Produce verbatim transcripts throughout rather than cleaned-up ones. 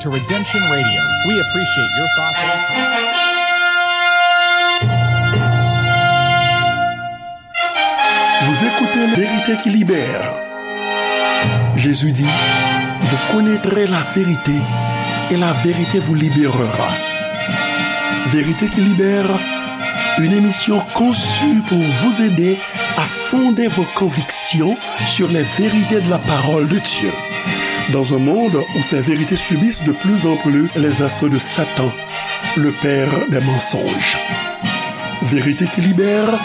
To Redemption Radio, we appreciate your thoughts and comments. Vous écoutez La Vérité qui Libère. Jésus dit, vous connaîtrez la vérité et la vérité vous libérera. Vérité qui Libère, une émission conçue pour vous aider à fonder vos convictions sur les vérités de la parole de Dieu. Dans un monde où ces vérités subissent de plus en plus les assauts de Satan, le père des mensonges. Vérité qui Libère,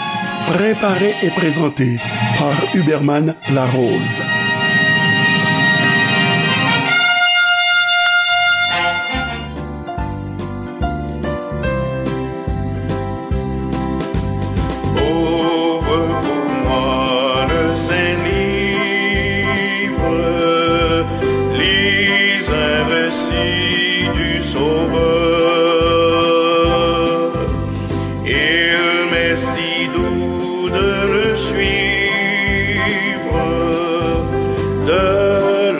préparée et présentée par Huberman Larose. Ouvre pour moi le Saint Livre, lis un récit du Sauveur. Il m'est si doux de le suivre, de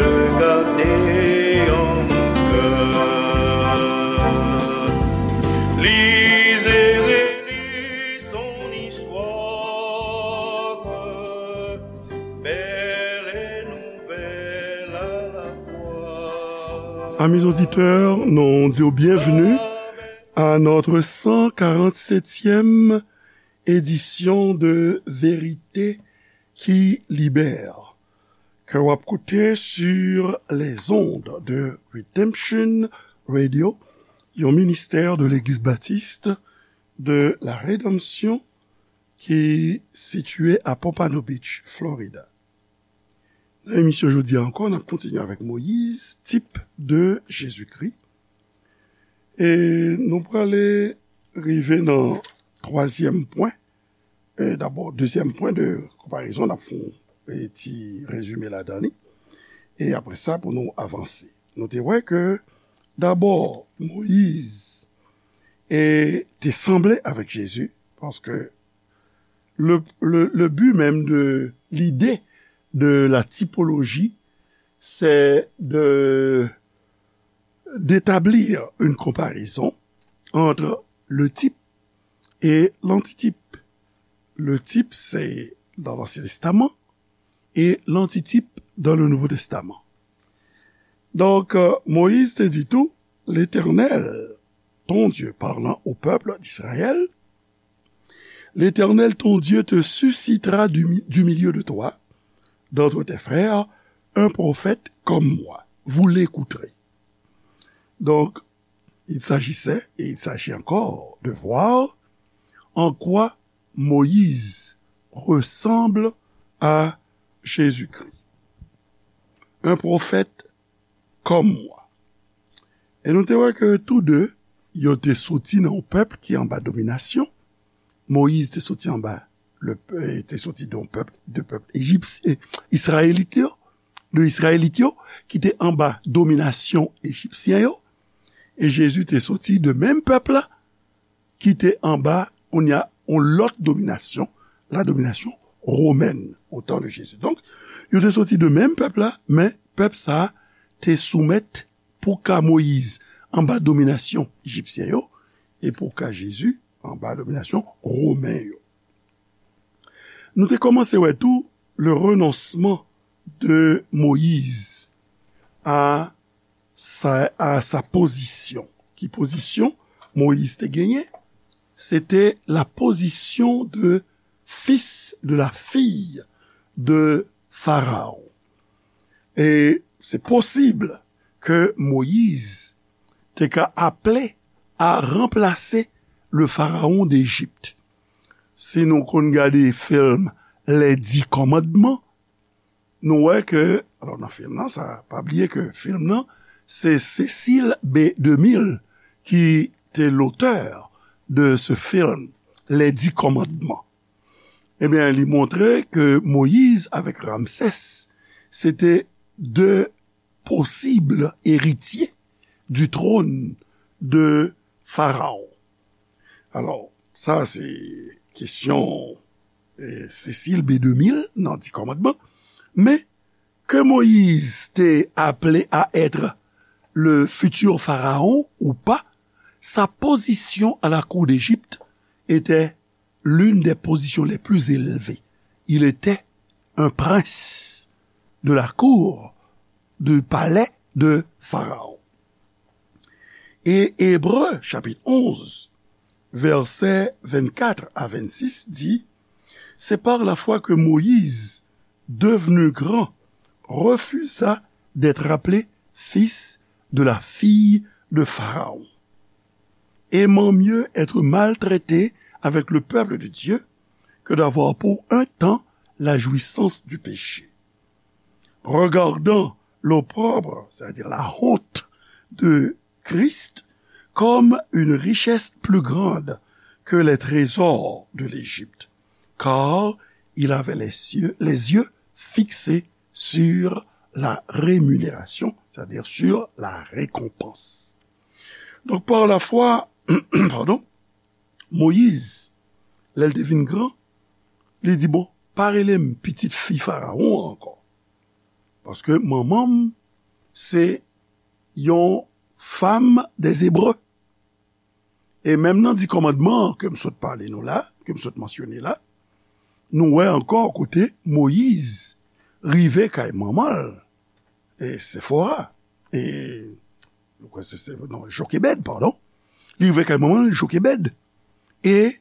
le garder en mon cœur. Lis et relis son histoire, belle et nouvelle à la fois. Amis auditeurs, nous disons bienvenue à notre cent quarante-septième édition de Vérité qui Libère, ke w ap koute sur les ondes de Redemption Radio, yon ministè de Legliz Batis de la Redanmsyon ki sitiye a Pompano Beach, Florida. Nan emisyon jodi a ankò, n ap kontinye avèk Moyiz, tip de Jezikri. E nou prale rive nan twazyèm pwen. E dabò, dezyèm pwen de konparezon, n ap fè yon, e, ti rezime ladan li. E apre sa, pou nou avanse. Nou te wè ke, dabò, Moyiz, e, te sanble avèk Jezi, paske le, le, le but même de l'idée de la typologie, c'est de, d'établir une comparaison entre le type et l'antitype. Le type, c'est dans l'Ancien Testament, et l'antitype dans le Nouveau Testament. Donc, euh, Moïse te dit tout, l'Éternel, ton Dieu, parlant au peuple d'Israël, l'Éternel, ton Dieu, te suscitera du, mi- du milieu de toi, d'entre tes frères, un prophète comme moi. Vous l'écouterez. Donc, il s'agissait, et il s'agit encore, de voir en quoi Moïse ressemble à Jésus-Christ. Un prophète comme moi. E nou te wè ke tou de, yo te soti nan yon pèp ki anba dominasyon. Moyiz te soti anba, le, eh, te soti de yon pèp, de pèp ejipsyen, Izrayelit yo, de Izrayelit yo, ki te anba dominasyon ejipsyen yo. E Jezi te soti de menm pèp la, ki te anba, kounye a, yon lòt dominasyon, la domination romaine, au temps de Jésus. Donk, yo te soti de menm pèp la, men pèp sa a te soumèt pou ka Moyiz anba dominasyon ejipsyen yo, e pou ka Jezi anba dominasyon romen yo. Nou te kòmanse wè tou le renoncement de Moïse à sa, à sa position. Ki pozisyon Moyiz te genyen? Se te la position de fils de la fille de Pharaon. E se posib ke Moyiz te ka aple a ranplase le pharaon d'Égypte. Si nou konn gade film Les Dix Commandements, nou wè ke, alò nan film nan, sa, pa bliye ke film nan, se Cécile B deux mille ki te l'auteur de ce film, Les Dix Commandements. Ebyen, li montre ke Moyiz avèk Ramsès, se te de posib eritye du trône de Pharaon. Alò, sa se kesyon, eh, Cécile B deux mille nan Dix Commandements, men ke Moyiz te aple a être le futur pharaon ou pas, sa position à la cour d'Égypte était l'une des positions les plus élevées. Il était un prince de la cour du palais de Pharaon. Et Hébreux, chapitre onze, versets vingt-quatre à vingt-six dit, c'est par la foi que Moïse, devenu grand, refusa d'être appelé fils de la fille de Pharaon, aimant mieux être maltraité avec le peuple de Dieu que d'avoir pour un temps la jouissance du péché. Regardant l'opprobre, c'est-à-dire la honte de Christ, comme une richesse plus grande que les trésors de l'Égypte, car il avait les yeux, les yeux fixés sur la rémunération, c'est-à-dire sur la récompense. Donc, par la foi, pardon, Moyiz, lè l te vin gran, li di, bon, pa rele m pitit fi Farawon an ankò. Paske manman m se yon fanm dè Ebre. E menm nan di kòmandman an ke m sot pale nou la, ke m sot mansyone la, nou wè ankò kote Moyiz rive kay manman l, e Sefora, e, mwen kwè se, se, non, Jokebèd, padon. Li rive kay manman l, Jokebèd. E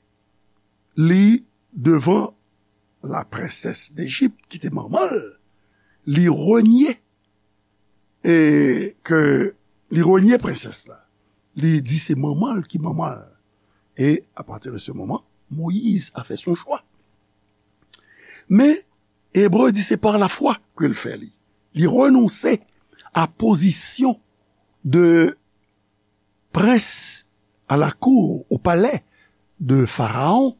li devan la prensès Dejip, ki te manman l, li renye, e ke li renye prensès la. Li di se manman l ki manman l. E apati de se moman, Moyiz a fè son chwa. Men, Ebre di se pa lafwa ke l fè li. Li renonse a pozisyon de prens a la cour, o palè de Farawon,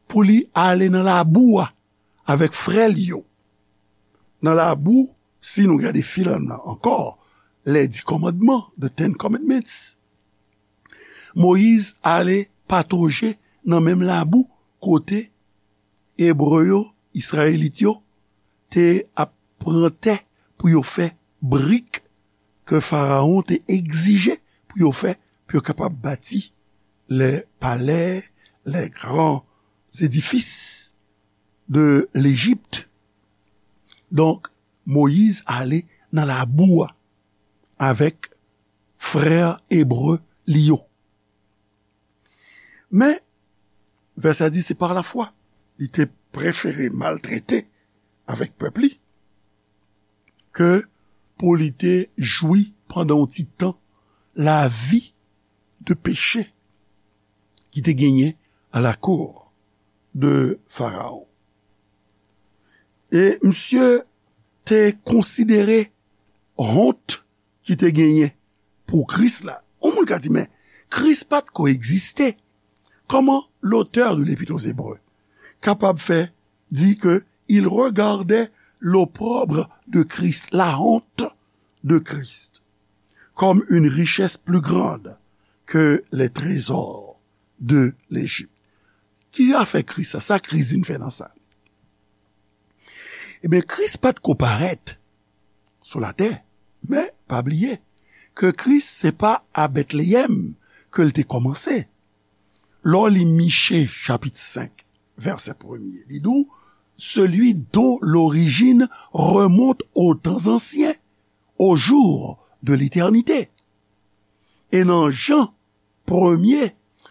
pou li ale nan labou a avèk frè l yo. Nan labou, si nou gade fil an nan ankò, les dix commandements, the Ten Commandments, Moyiz ale patoje nan menm labou kote Ebre yo, Izrayelit yo, te ap pran tè pou yo fè brik ke Farawon te egzije pou yo fè, pou yo kapab bati les palais, les grands édifices de l'Égypte. Donk, Moyiz ale nan labou a avèk frè Ebre li yo. Men, vèsè a di se pa lafwa. Li te prefere maltrete avèk pèp li ke pou li te jwi pandan yon ti tan lavi de peche ki te genyen a la cour de Farawon. E misye te konsidere wont ki te genyen pou Kris la. Yon moun ka di, men Kris pa t ko egziste. Comment l'auteur de l'Épître aux Hébreux kapab fè di ke il regardait l'opprobre de Christ, la honte de Christ, comme une richesse plus grande que les trésors de l'Égypte? Ki afè Kris sa? Sa Kris vin fè nan sa? Ebyen, Kris pa t ko parèt sou latè, men pa bliye ke Kris se pa a Betleyèm ke l te kòmanse. Lè w li Miche chapit senk, vèsè premye, li di w, celui dont l'origine remonte aux temps anciens, aux jours de l'éternité. E nan Jan premye,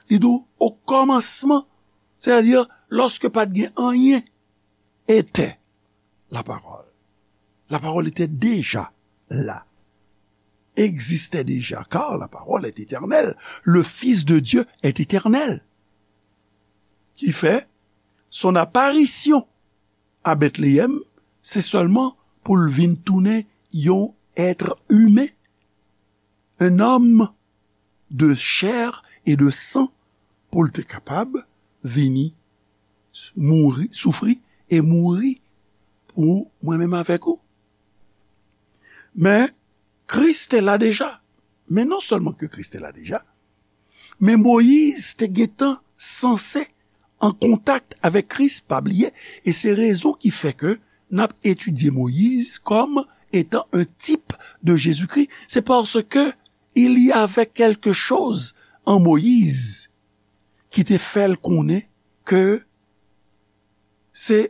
li di w, o kòmansman, sètadi lòske pa t gen anyen, était la parole. La parole était déjà là, existait déjà, car la parole est éternelle. Le Fils de Dieu est éternel. Ki fè, son apparition à Bethléem, se sèlman pou l vin tounen yon être humain, un homme de chair et de sang, pou l te kapab vini mouri, soufri e mouri pou mwen menm avèk ou. Men, Kris te la deja. Men non sèlman ke Kris te la deja, men Moyiz te gentan sanse an kontak avèk Kris, pa bliye, e se rezon ki fè ke n ap etidye Moyiz kòm étant un type de Jésus-Christ, c'est parce que il y avait quelque chose en Moïse ki te fè l konnen ke se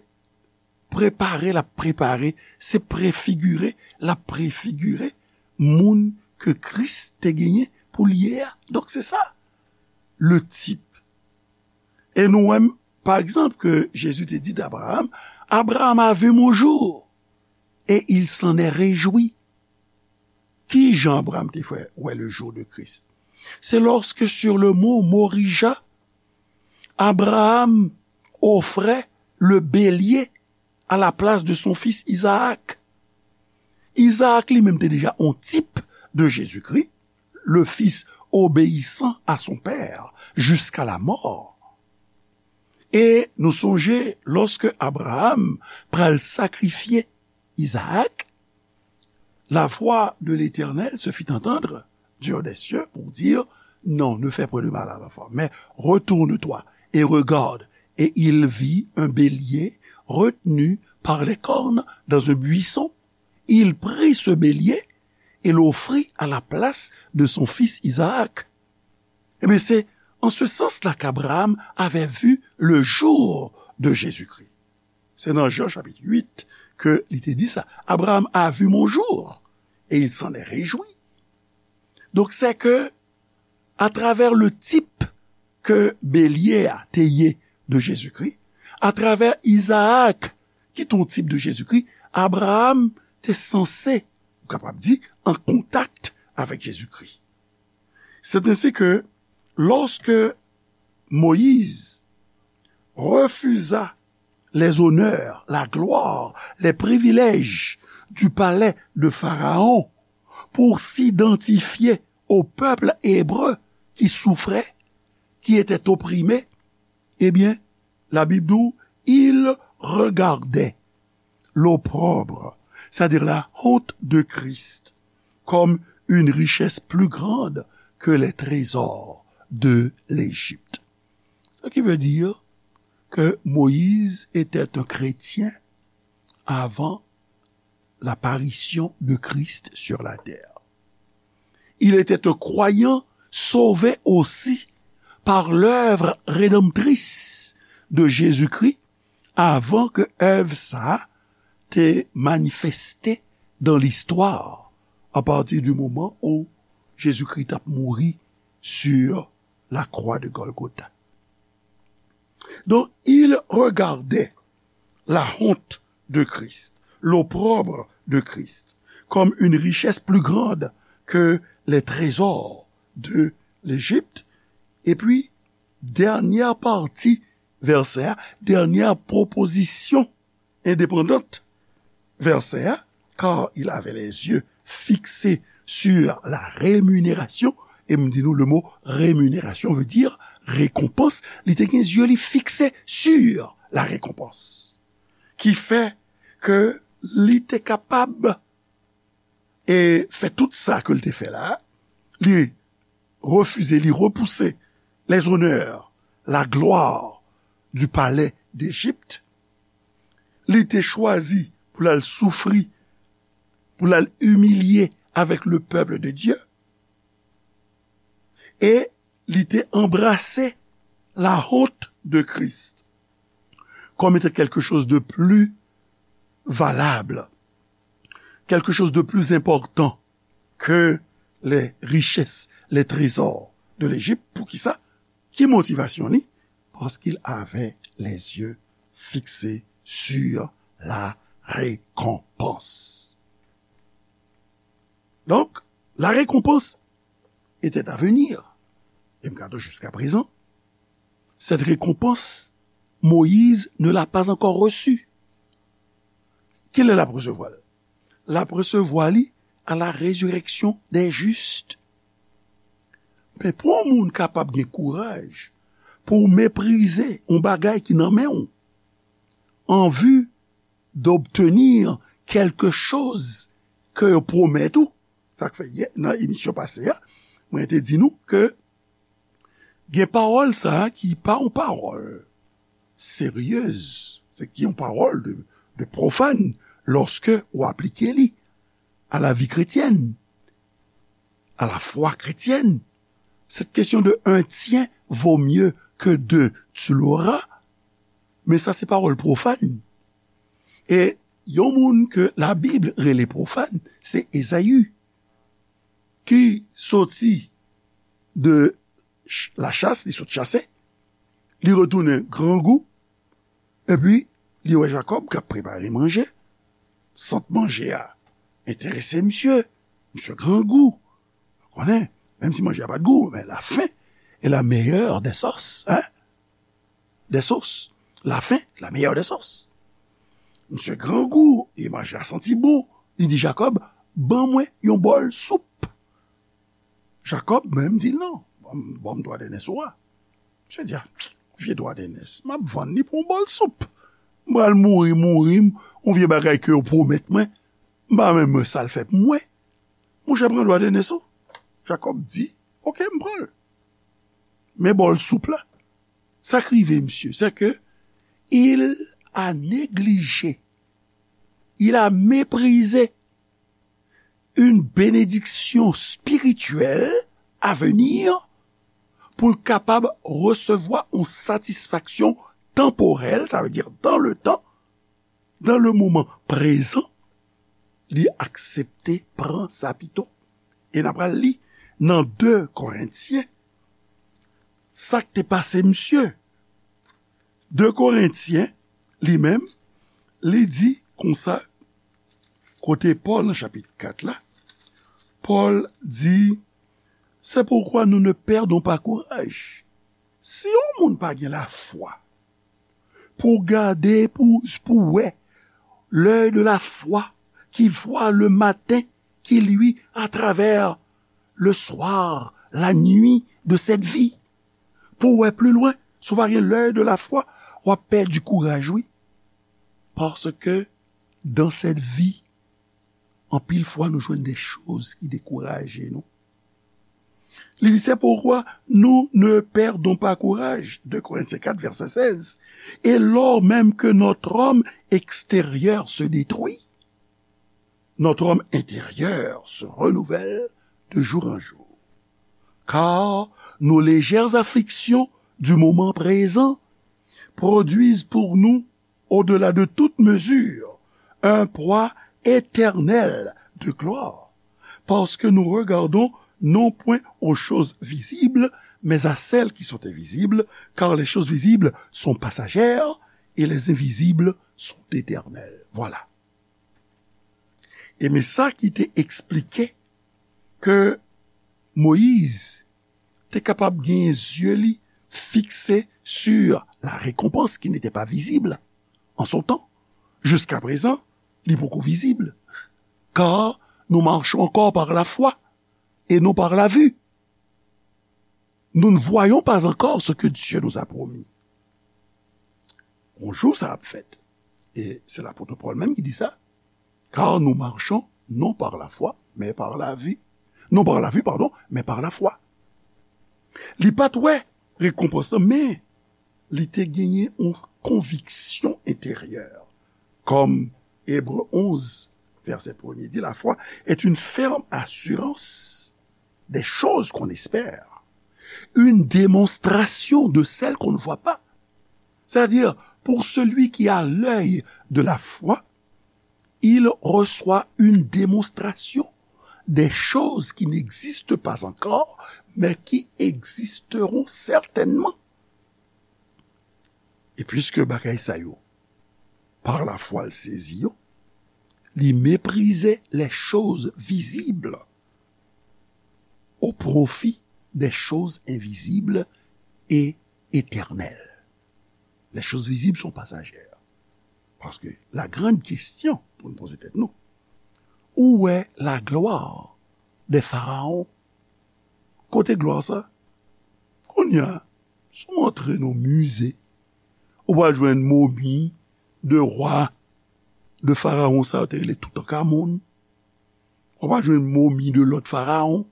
prepare l ap prepare, se prefigire l ap prefigire moun ke Kris te genyen pou l ye a. Donk, se sa, le type. E nou wè, pa egzanp, ke Jezi te di d'Abraham, Abraham a vu mon jour, et il s'en est réjoui. Ki jan Abraham te fè wè le jour de Christ? C'est lorsque sur le mont Morija, Abraham offrait le bélier à la place de son fils Isaac. Isaac li menm te deja on tip de Jezikri, le fils obéissant à son père jusqu'à la mort. E nou sonje, lòske Abraham pral sakrifye Isaac, la voix de l'Éternel se fit entendre du haut des cieux pour dire, non, ne fais point de mal à l'enfant, mais retourne-toi et regarde. Et il vit un bélier retenu par les cornes dans un buisson. Il prit ce bélier et l'offrit à la place de son fils Isaac. Ebyen, se en ce sens-là qu'Abraham avait vu le jour de Jésus-Christ. Se nan Jan chapit uit ke li te di sa. Abraham a vu mon jour et il s'en est réjoui. Donk, se ke atravè le tip ke belye a te ye de Jezikri, atravè Izaak ki te yon tip de Jezikri, Abraham te sanse, ou kapab di, an kontak avèk Jezikri. C'est ainsi que lorsque Moïse refusa les honneurs, la gloire, les privilèges du palais de Pharaon pour s'identifier au peuple hébreu qui souffrait, qui était opprimé, eh bien, la Bible dit, il regardait l'opprobre, c'est-à-dire la honte de Christ, comme une richesse plus grande que les trésors de l'Égypte. Ce qui veut dire que Moïse était un chrétien avant l'apparition de Christ sur la terre. Il était un croyant sauvé aussi par l'œuvre rédemptrice de Jésus-Christ avan ke èv sa a te manifeste dans l'histoire à partir du moment où Jésus-Christ t ap mouri sur la croix de Golgotha. Donc, il regardait la honte de Christ, l'opprobre de Christ, comme une richesse plus grande que les trésors de l'Égypte. Et puis, dènyè pati vèsè a, dènyè pwopozisyon endepandant vèsè a, car il avait les yeux fixés sur la rémunération, e m di nou le mot rémunération veut dire récompense, li te gen zye li fikse sur la récompense. Ki fè ke li te kapab e fè tout sa ke l te fè la, li refize, li repouse les honneurs, la gloire du palais d'Égypte. Li te chwazi pou l al soufri, pou l al imilye avèk le peuple de Dieu. E li te anbrase la honte de Christ comme étant quelque chose de plus valable, quelque chose de plus important que les richesses, les trésors de l'Égypte. Poukisa? Ki motivasyon li? Parce qu'il avait les yeux fixés sur la récompense. Donc, la récompense était à venir. E m ka di w, jusqu'à présent, cette récompense, Moïse ne l'a pas encore reçue. Kilè l ap resevwa l? L ap resevwa li à la résurrection des justes. Men pou yon moun kapab gen kouraj pou w meprize yon bagay ki nan men w, en vue d'obtenir quelque chose ke yo pwomèt ou, sa k fè yè, nan emisyon pase a, mwen te di nou ke gen pawòl sa a ki pa yon pawòl seryez, se ki yon pawòl de, de pwofàn lòske w aplike li. à la vie chrétienne, à la foi chrétienne. Cette question de un tien vaut mieux que deux, tu l'auras. Men sa se pawòl pwofàn. E yon moun ke Labib rele pwofàn, se Ezayi, ki soti de ch-, lachas, li sot chase, li retounen grangou, epi li wè Jakòb k ap prepare manje. Sant manje a enterese misye. Misye grangou. Konnen, menm si manje a pa t gou, men la faim est la meilleure des sauces, hein? Des sauces. La faim, la meilleure des sauces. Misye grangou, e manje a santi bon. Li di Jakòb, ban mwen yon bòl soup. Jakòb menm di l non. Ban m, ban m dwa dènès ou a. Misye di, a, vye dwa dènès, m ap vann li pou yon bòl soup. M pral mouri, mouri, m, yon vye bagay ke yo pwomèt mwen, m pa menm wè sa l fè pou mwen. Monchè, pran dwa dènès ou. Jakòb di, oke, m pran l. Men bòl soup la, sa k rive misye, c'est que il a négligé, il a méprisé une bénédiction spirituelle à venir pou l kapab resevwa yon satisfaksyon tanporèl, sa vle di dans le temps, dans le moment présent, li aksepte pran sa pito. E n ap pral li nan de Korentyen, sa k te pase misye. De Korentyen, li menm, li di konsa, kote Pòl nan chapit kat la, Pòl di, c'est pourquoi nous ne perdons pas courage. Si yon moun pa gen lafwa, pou gade, pou, pou wè, l'œil de la foi qui voit le matin, qui luit à travers le soir, la nuit de cette vie. Pou wè pli lwen, si w pa gen l'œil de la foi, w ap pèdi kouraj, wi. Paske dans cette vie, anpil fwa nou jwenn de choz ki dekouraje nou. Li di, c'est pourquoi nous ne perdons pas courage, de Corinthiens quatre, verset seize. Et lors même que notre homme extérieur se détruit, notre homme intérieur se renouvelle de jour en jour. Car nos légères afflictions du moment présent produisent pour nous au-delà de toute mesure, un poids éternel de gloire, parce que nous regardons non point aux choses visibles, mais à celles qui sont invisibles, car les choses visibles sont passagères et les invisibles sont éternelles. Voilà. E men sa ki te eksplike ke Moyiz te kapab genyen zye li fikse sur la récompense qui n'était pas visible en son temps. Jusqu'à présent, li poko vizib. Car nous marchons encore par la foi et non par la vue. Nous ne voyons pas encore ce que Dieu nous a promis. Yon jou sa ap fèt. E se lapot Pòl menm ki di sa. Car nous marchons non par la foi, mais par la vue. Non par la vue, pardon, mais par la foi. Li pa t wè rekonpans lan, men li te genyen yon konviksyon enteryè. Kòm Ebre onz, vèsè premye di, la foi est une ferme assurance des choses qu'on espère, une démonstration de celles qu'on ne voit pas. C'est-à-dire, pour celui qui a l'œil de la foi, il reçoit une démonstration des choses qui n'existent pas encore, mais qui existeront certainement. E piske bagay sa yo, par la foi, l sezi yo, li meprize les choses visibles au profit des choses invisibles et éternelles. Les choses visibles sont passagères. Paske la grande question pou nou poze tèt nou, où est la gloire des pharaons? Kote glwa sa? Kounye a, si w antre nan mize, ou pral jwenn momi de wa, de farawon sa yo te rele Toutankamon. Ou pral jwenn momi de lòt farawon.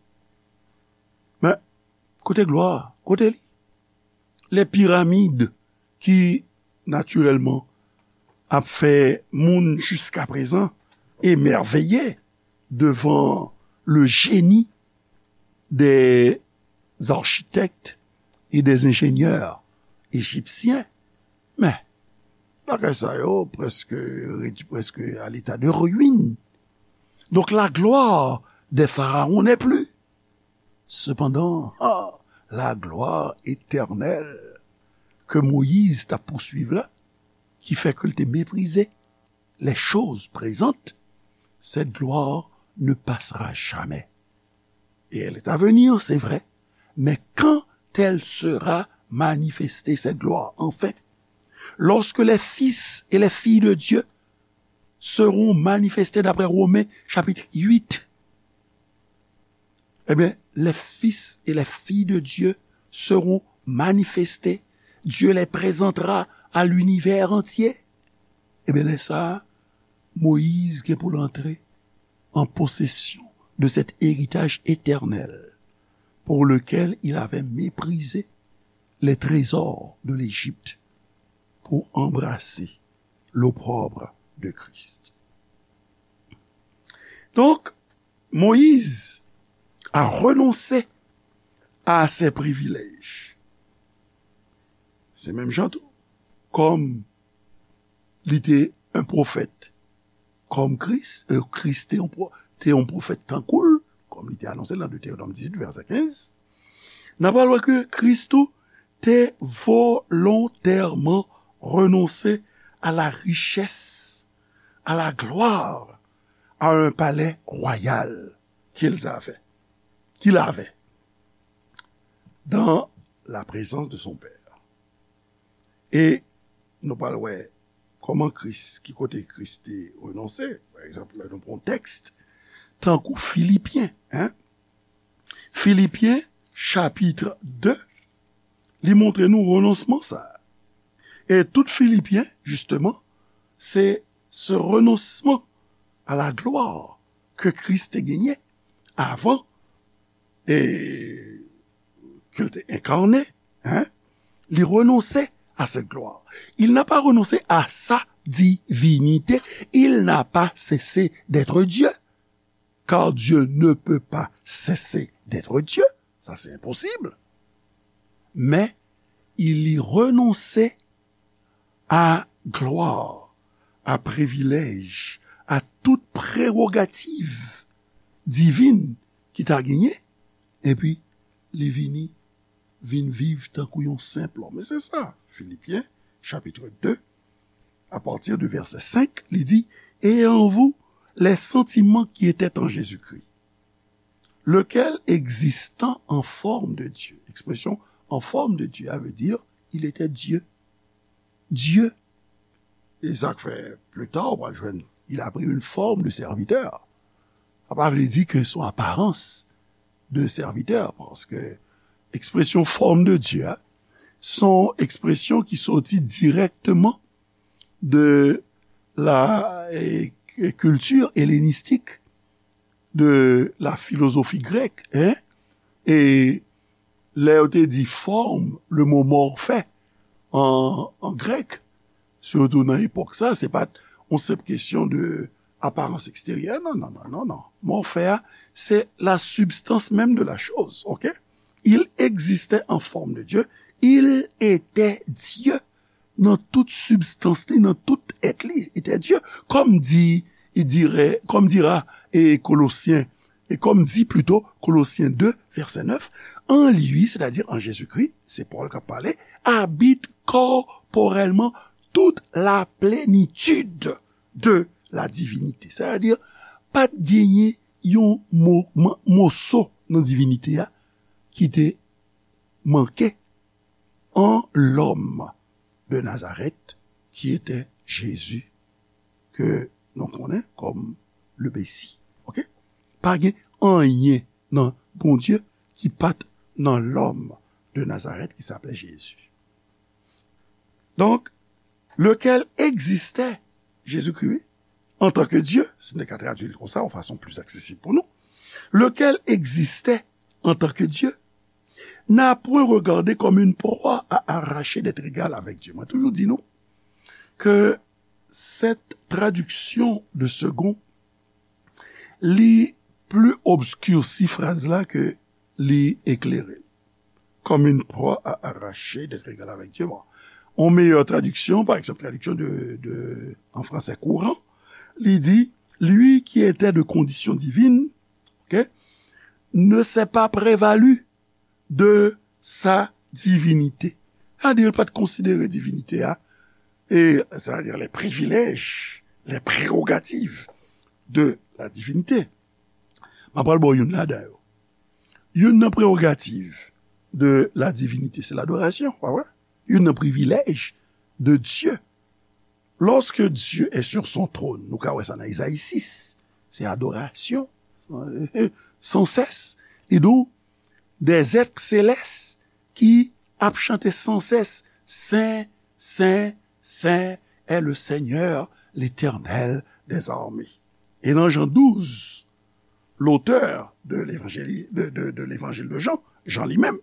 Men, kote glwa a? Kote li? Les pyramides ki, natirèlman, ap fè moun jiskaprezan emèveye devant le génie des architectes et des ingénieurs égyptiens. Men, bagay sa yo prèske redui, prèske à l'état de ruine. Donc la gloire des pharaons n'est plus. Cependant, ah, la gloire éternelle que Moïse t'a poursuivi là, qui fait que te mépriser les choses présentes, cette gloire ne passera jamais. Et elle est à venir, c'est vrai, mais quand elle sera manifestée, cette gloire, enfin, lorsque les fils et les filles de Dieu seront manifestés, d'après Romains chapitre huit, eh bien, les fils et les filles de Dieu seront manifestés. Dieu les présentera à l'univers entier. Eh bien, lè sa, Moïse gen pou l antre en possession de cet héritage éternel pour lequel il avait méprisé les trésors de l'Égypte pour embrasser l'opprobre de Christ. Donc, Moïse a renoncé à ses privilèges. Se menm jan tou, kòm li te yon pwofèt, kòm Kris, e Kris te yon pwo-, te yon pwofèt tankou l, kòm li te anonse l nan Detewonòm dizuit, vèsè kenz, n ap pral wè ke Kris tou te volontèman renonse à la richesse, à la gloire, à un palais royal qu'ils avaient, qu'il avait dans la présence de son Père. E nou pral wè kòman Kris, ki kote Kris te renonse. Pa egzanp, lè nou pran tèks tankou Filipyen, en? Filipyen, chapit de, li montre nou renonsman sa a. E tout Filipyen, jisteman, se ce renoncement à la gloire que Christ te genyen avan e ke l te enkarne, en, li renonse à cette gloire. Il n'a pas renoncé à sa divinité. Il n'a pas cessé d'être Dieu. Car Dieu ne peut pas cesser d'être Dieu. Ça, c'est impossible. Mais il y renonçait à gloire, à privilège, à toute prérogative divine ki ta genyen, epi li vini, vin viv tankou yon senp lòm. E se sa, Filipyen, chapit de, à partir du verset cinq, li di, et en vous, les sentiments qui étaient en Jésus-Christ, lequel existant en forme de Dieu. Expression en forme de Dieu, ça veut dire, il était Dieu. Dieu. E sa k fè, plus tard, ou va jwenn, il a pris une forme de serviteur. Sa pa vle di ke son aparans de serviteur, paske ekspresyon forme de Dieu a, son ekspresyon ki soti dirèkteman de la, e, e, culture hellénistique, de la philosophie grecque, en? E lè yo te di forme, le mot morphe an, an grèk, sitou nan epòk sa, se pa t yon senp kesyon de aparans eksteryè, non, non, non, non, non. Morphe a, c'est la substance même de la chose, ok? Il existait en forme de Dieu, il était Dieu. Nan tout sibstans li, nan tout èt li, était Dieu. Comme dit, il dirait, comme dira, et Colossiens, et comme dit plutôt Colossiens deux, verset neuf, en lui, c'est-à-dire en Jésus-Christ, c'est Paul qui a parlé, habite corporellement toute la plénitude de la divinité. C'est-à-dire, pa t genyen yon mo-, mo-, moso nan divinite a ki te manke en l'homme de Nazareth, qui était Jésus, ke nou konnen kòm le Messie. Ok? Pa gen anyen nan Bondye ki pa t nan lòm de Nazareth ki s'appelait Jésus. Donc, lequel existait, Jésus-Christ, oui, en tant que Dieu, si nou ka tradui l konsa, yon fason pli aksesib pou nou, lequel existait en tant que Dieu, n'a point regardé comme une proie à arracher d'être égal avec Dieu. Mwen toujou di nou ke cette traduction de Segond li pli obskirsi fraz la ke li eklere l. Comme une proie à arracher d'être égal avec Dieu. Bon. Yon meyè tradiksyon, pa egzanp, tradiksyon de, de, an fransè kouran, li di, lui qui était de condition divine, ok, ne s'est pas prévalu de sa divinité. Sa di, li pa t konsidere divinite a, e, c'est-à-dire les privilèges, les prérogatives de la divinité. M ap pral ba w youn ladan yo. Youn nan prerogativ de la divinite, se ladorasyon, pa vre? Youn nan privilèj de Dieu. Lorsque Dieu est sur son trône, nou ka wè sa nan Ezayi sis, se adorasyon, san sès. Li di w, des êtres célestes ki ap chante san sès, Sen, Sen, Sen est le Seigneur, l'Éternel des armées. E nan Jan douz, l'auteur de l'évangile, de, de, de l'évangile de Jean, Jan li menm,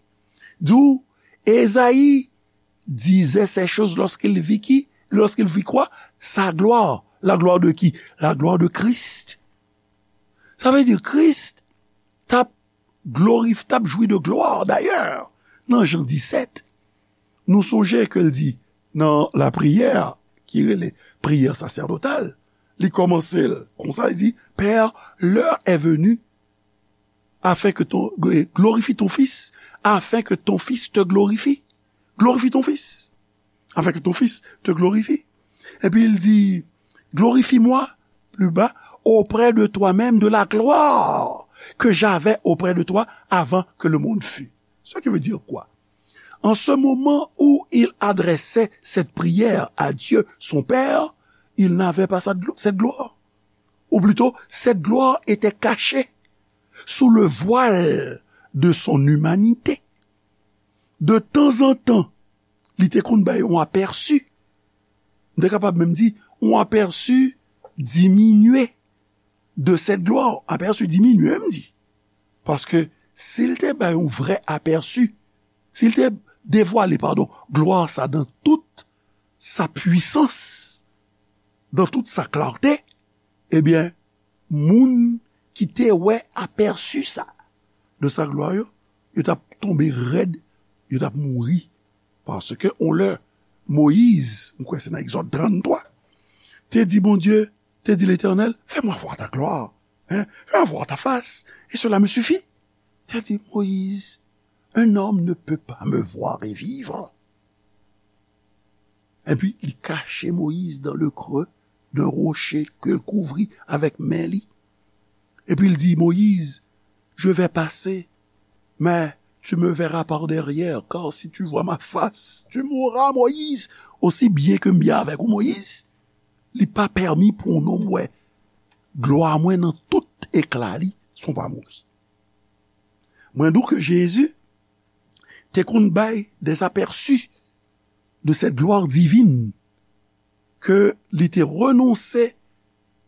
di w, Ezayi disait ces choses lorsqu'il vit qui, lorsqu'il vit quoi? Sa gloire. La gloire de qui? La gloire de Christ. Sa vle di Kris t ap glorif-, t ap jwi de glwa. Dayè, nan Jan disèt, nou sonje ke l di nan lapriyè ki rele priyè sasèdotal, li kòmanse l konsa, li di, Père, l'heure est venue afin que ton, glorifie ton Fils, afin que ton Fils te glorifie. Glorifie ton Fils, afin que ton Fils te glorifie. Epi l di, Glorifie-moi, plus bas, auprès de toi-même, de la gloire que j'avais auprès de toi avant que le monde fût. Ce qui veut dire quoi? En ce moment où il adressait cette prière à Dieu, son Père, il n'avait pas cette glo-, cette gloire. Ou plutôt, cette gloire était cachée sous le voile de son humanité. De temps en temps, li te konn bay yon apèsi. M te kapab menm di, yon apèsi diminye de cette gloire. Apèsi diminye, m di. Paske si l te bay yon vrè apèsi, si l te devwale, padon, glwa sa dans toute sa puissance, dans toute sa clarté, ebyen, moun ki te wè apèsi sa de sa glwa yo, yo t ap tonbe rèd, yo t ap mouri. Paske on lè, Moyiz, m kwè se nan Egzòd tranntwa, te di Bondye, te di Letènèl, Fais-moi voir ta gloire, hein, fais-moi voir ta face, et cela me suffit. Te di, Moyiz, un homme ne peut pas me voir et vivre. Epi li kache Moyiz dans le creux d'un rocher ke l kouvri avèk men li. Epi l di, Moyiz, je vais passer, mais tu me verras par derrière, car si tu vois ma face, tu mourras, Moyiz. Osi byen ke m byen avèk ou, Moyiz, li pa pèmi pou yon nonm wè glwa mwen nan tout ekla li san w pa mouri. Mwen di w ke Jezi te konn bay des aperçus de cette gloire divine ke li te renonse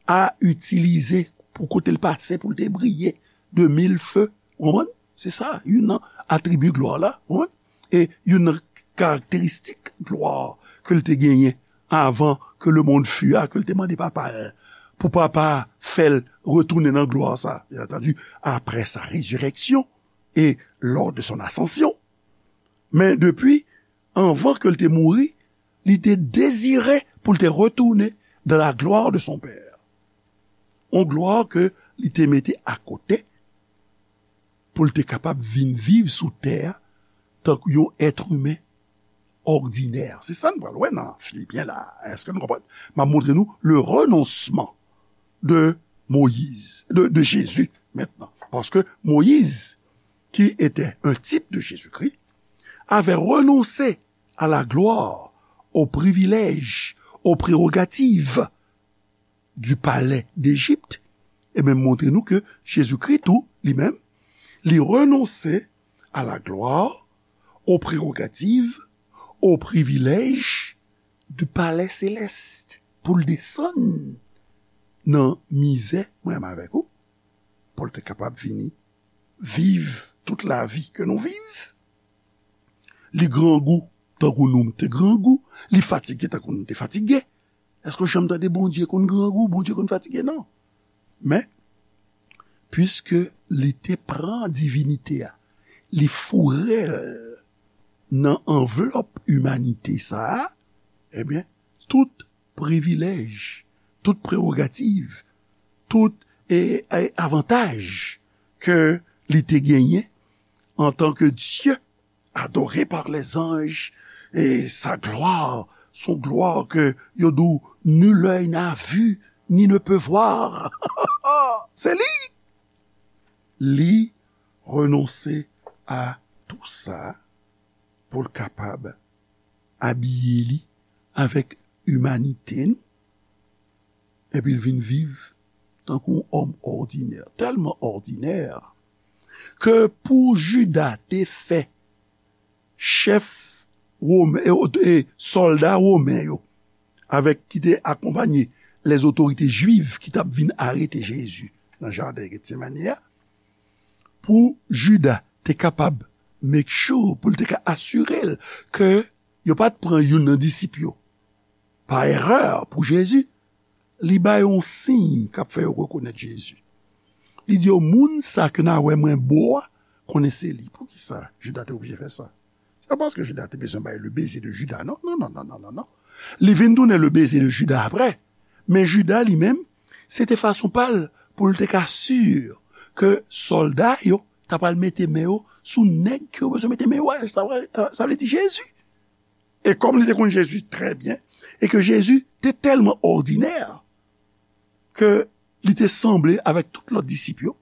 a itilize pou kote l pase pou l te briye de mil feu. Ou konprann? Se sa, youn nan atribi glwa la, ou konprann? E youn nan karakteristik glwa ke l te genyen avan ke le monde fût a, ke l te mande Papa l, pou Papa fè l retounen nan glwa sa, bien entendu, après sa résurrection et lors de son ascension. Men depi anvan ke l te mouri, li te dezire pou l te retounen dans la gloire de son Père. Yon glwa ke li te mete akote pou l te kapab vin viv sou tè a tankou yon èt imen òdinè. Se sa n pral wè nan Filipyen la. Èske nou konprann? M ap montre nou le renoncement de Moïse, de, de Jésus maintenant. Parce que Moïse, qui était un type de Jésus-Christ, avait renoncé à la gloire, aux privilèges, aux prérogatives du palais d'Égypte, e menm montre nou ke Jezikri tou, li menm, li renonse a la glwa, o prerogativ, o privilèj du palais céleste pou l desann nan mizè, mwen menm avèk ou, pou l te kapab vini viv tout lavi ke nou viv. Li grangou tankou nou te grangou, li fatige tankou nou te fatige. Èske w janm tande Bondye konn grangou, Bondye konn fatige? Non. Men, piske li te pran divinite a, li foure l nan anvlòp imanite sa a, ebyen, tout privilèj, tout prewogativ, tout, e, e, avantaj ke li te genyen antanke Dye, adoré par les anges, et sa gloire, son gloire que yo di w nul œil n'a vu ni ne peut voir. Se li! Li renonse a tou sa pou l kapab abiye li avèk imanite nou, epi l vin viv tankou yon òm òdinè, tèlman òdinè ke pou Jida te fè chèf women, e, e, sòlda women yo, avèk ki te akonpanye lèzotorite jwiv ki t ap vin arete Jezi nan jaden Getsemane a, pou Jida te kapab make sure, pou l te ka asire l ke yo pa t pran youn nan disip yo pa erè pou Jezi, li ba yo yon siy k ap fè yo rekonèt Jezi. Li di yo, moun sa ke n a wè mwen bo a, konnen se li. Poukisa Jida te oblije fè sa? Se pa paske Jida te bezwen bay le baiser de Judas, non, non, non, non, non, non, non. Li vin tounen le baiser de Judas apre. Men Jida li menm, se te fason pa l pou l te ka si ke sòlda yo ta pral mete men yo sou nèg ke yo bezwen mete men yo a. Sa vle, sa vle di Jezi. E kòm li te konn Jezi trè byen, e ke Jezi te tèlman òdinè ke li te sanble avèk tout lòt disip yo,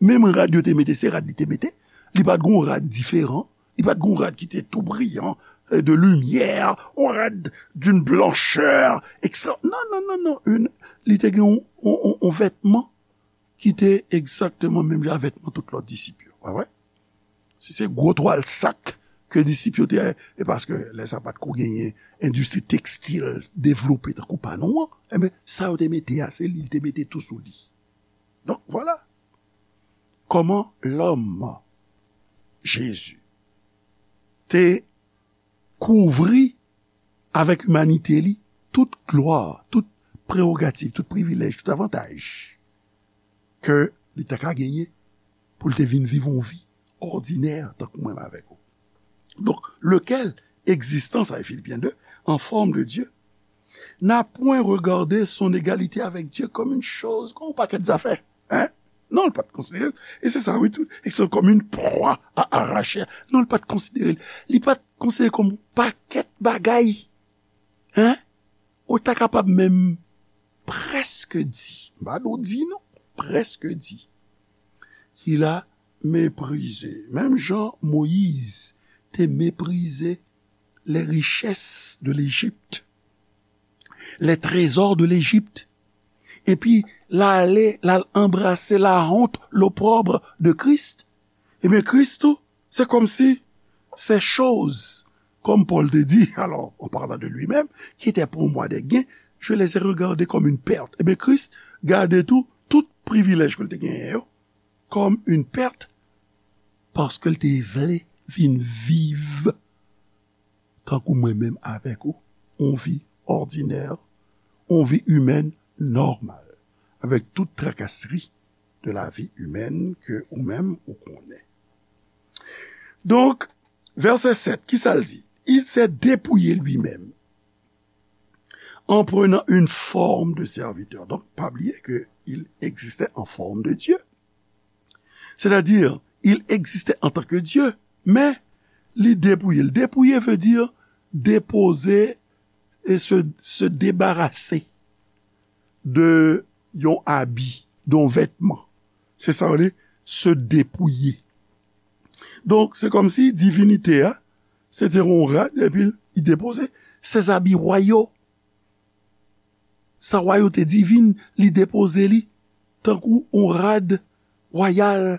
menm rad yo te mete, se rad li te mete. Li pa t gon rad diferan. Li pa t gon rad ki te tou briyan, e, de limyè, yon rad d'une blancheur extra. Non, non, non, non. Li te gen yon, yon, yon, yon vètman ki te egzakteman menm jan a vètman tout lòt disip yo. Pa vre? Si se gwo twal sak ke disip yo te, e paske lè sa pa t ko genyen endistri tekstil devlope tankou pa nou an, enben, sa yo te mete a, se li, li te mete tou sou li. Donk, vwala. Kòman lòm, Jezi, te kouvri avèk imanite li tout glwa, tout prewogativ, tout privilèj, tout avantaj ke li ta ka genyen pou l te vin viv yon vi òdinè tankou mwen avèk ou. Donk, lequel, existant, sa e Filipyen de, en forme de Dieu, n'a point regardé son égalité avec Dieu comme une chose, kòm yon pakèt zafè. Hein? Non, li pa t konsidere l. E se sa, wi, tou. Et c'est comme une proie à arracher. Non, li pa t konsidere l. Li pa t konsidere l kòm yon pakèt bagay. Hein? Ou ta kapab menm prèske di, m pa di w di non, prèske di, qu'il a méprisé. Menm jan Moyiz te meprize les richesses de l'Égypte, les trésors de l'Égypte, epi l ale, l al anbrase la honte, l'opprobre de Christ, ebyen, Kris tou, c'est comme si ces choses, comme Paul te dit, alors, en parlant de lui-même, qui étaient pour moi des gains, je les ai regardées comme une perte. Ebyen, Kris gade tou, tout privilèj ke l te genyen yo, comme une perte, paske l te vle vin viv tankou mwen menm avèk ou, yon vi òdinè, yon vi imèn nòmal, avèk tout trakasri de la vie humaine ke ou menm ou konnen. Donk, vèsè sèt, ki sa l di? Il s'est dépouillé lui-même en prenant une forme de serviteur. Donk, pa bliye ke il existait en forme de Dieu. C'est-à-dire, il existait en tant que Dieu, men li depouye l. Depouye veut dire déposer et se, se débarrasser de yon abi, de yon vètman. Se sa yo rele se depouye. Donk, se kòmsi divinite a, se te yon rad, epi li depoze ses habits royaux. Sa wayote divin, li depoze li tankou yon rad wayal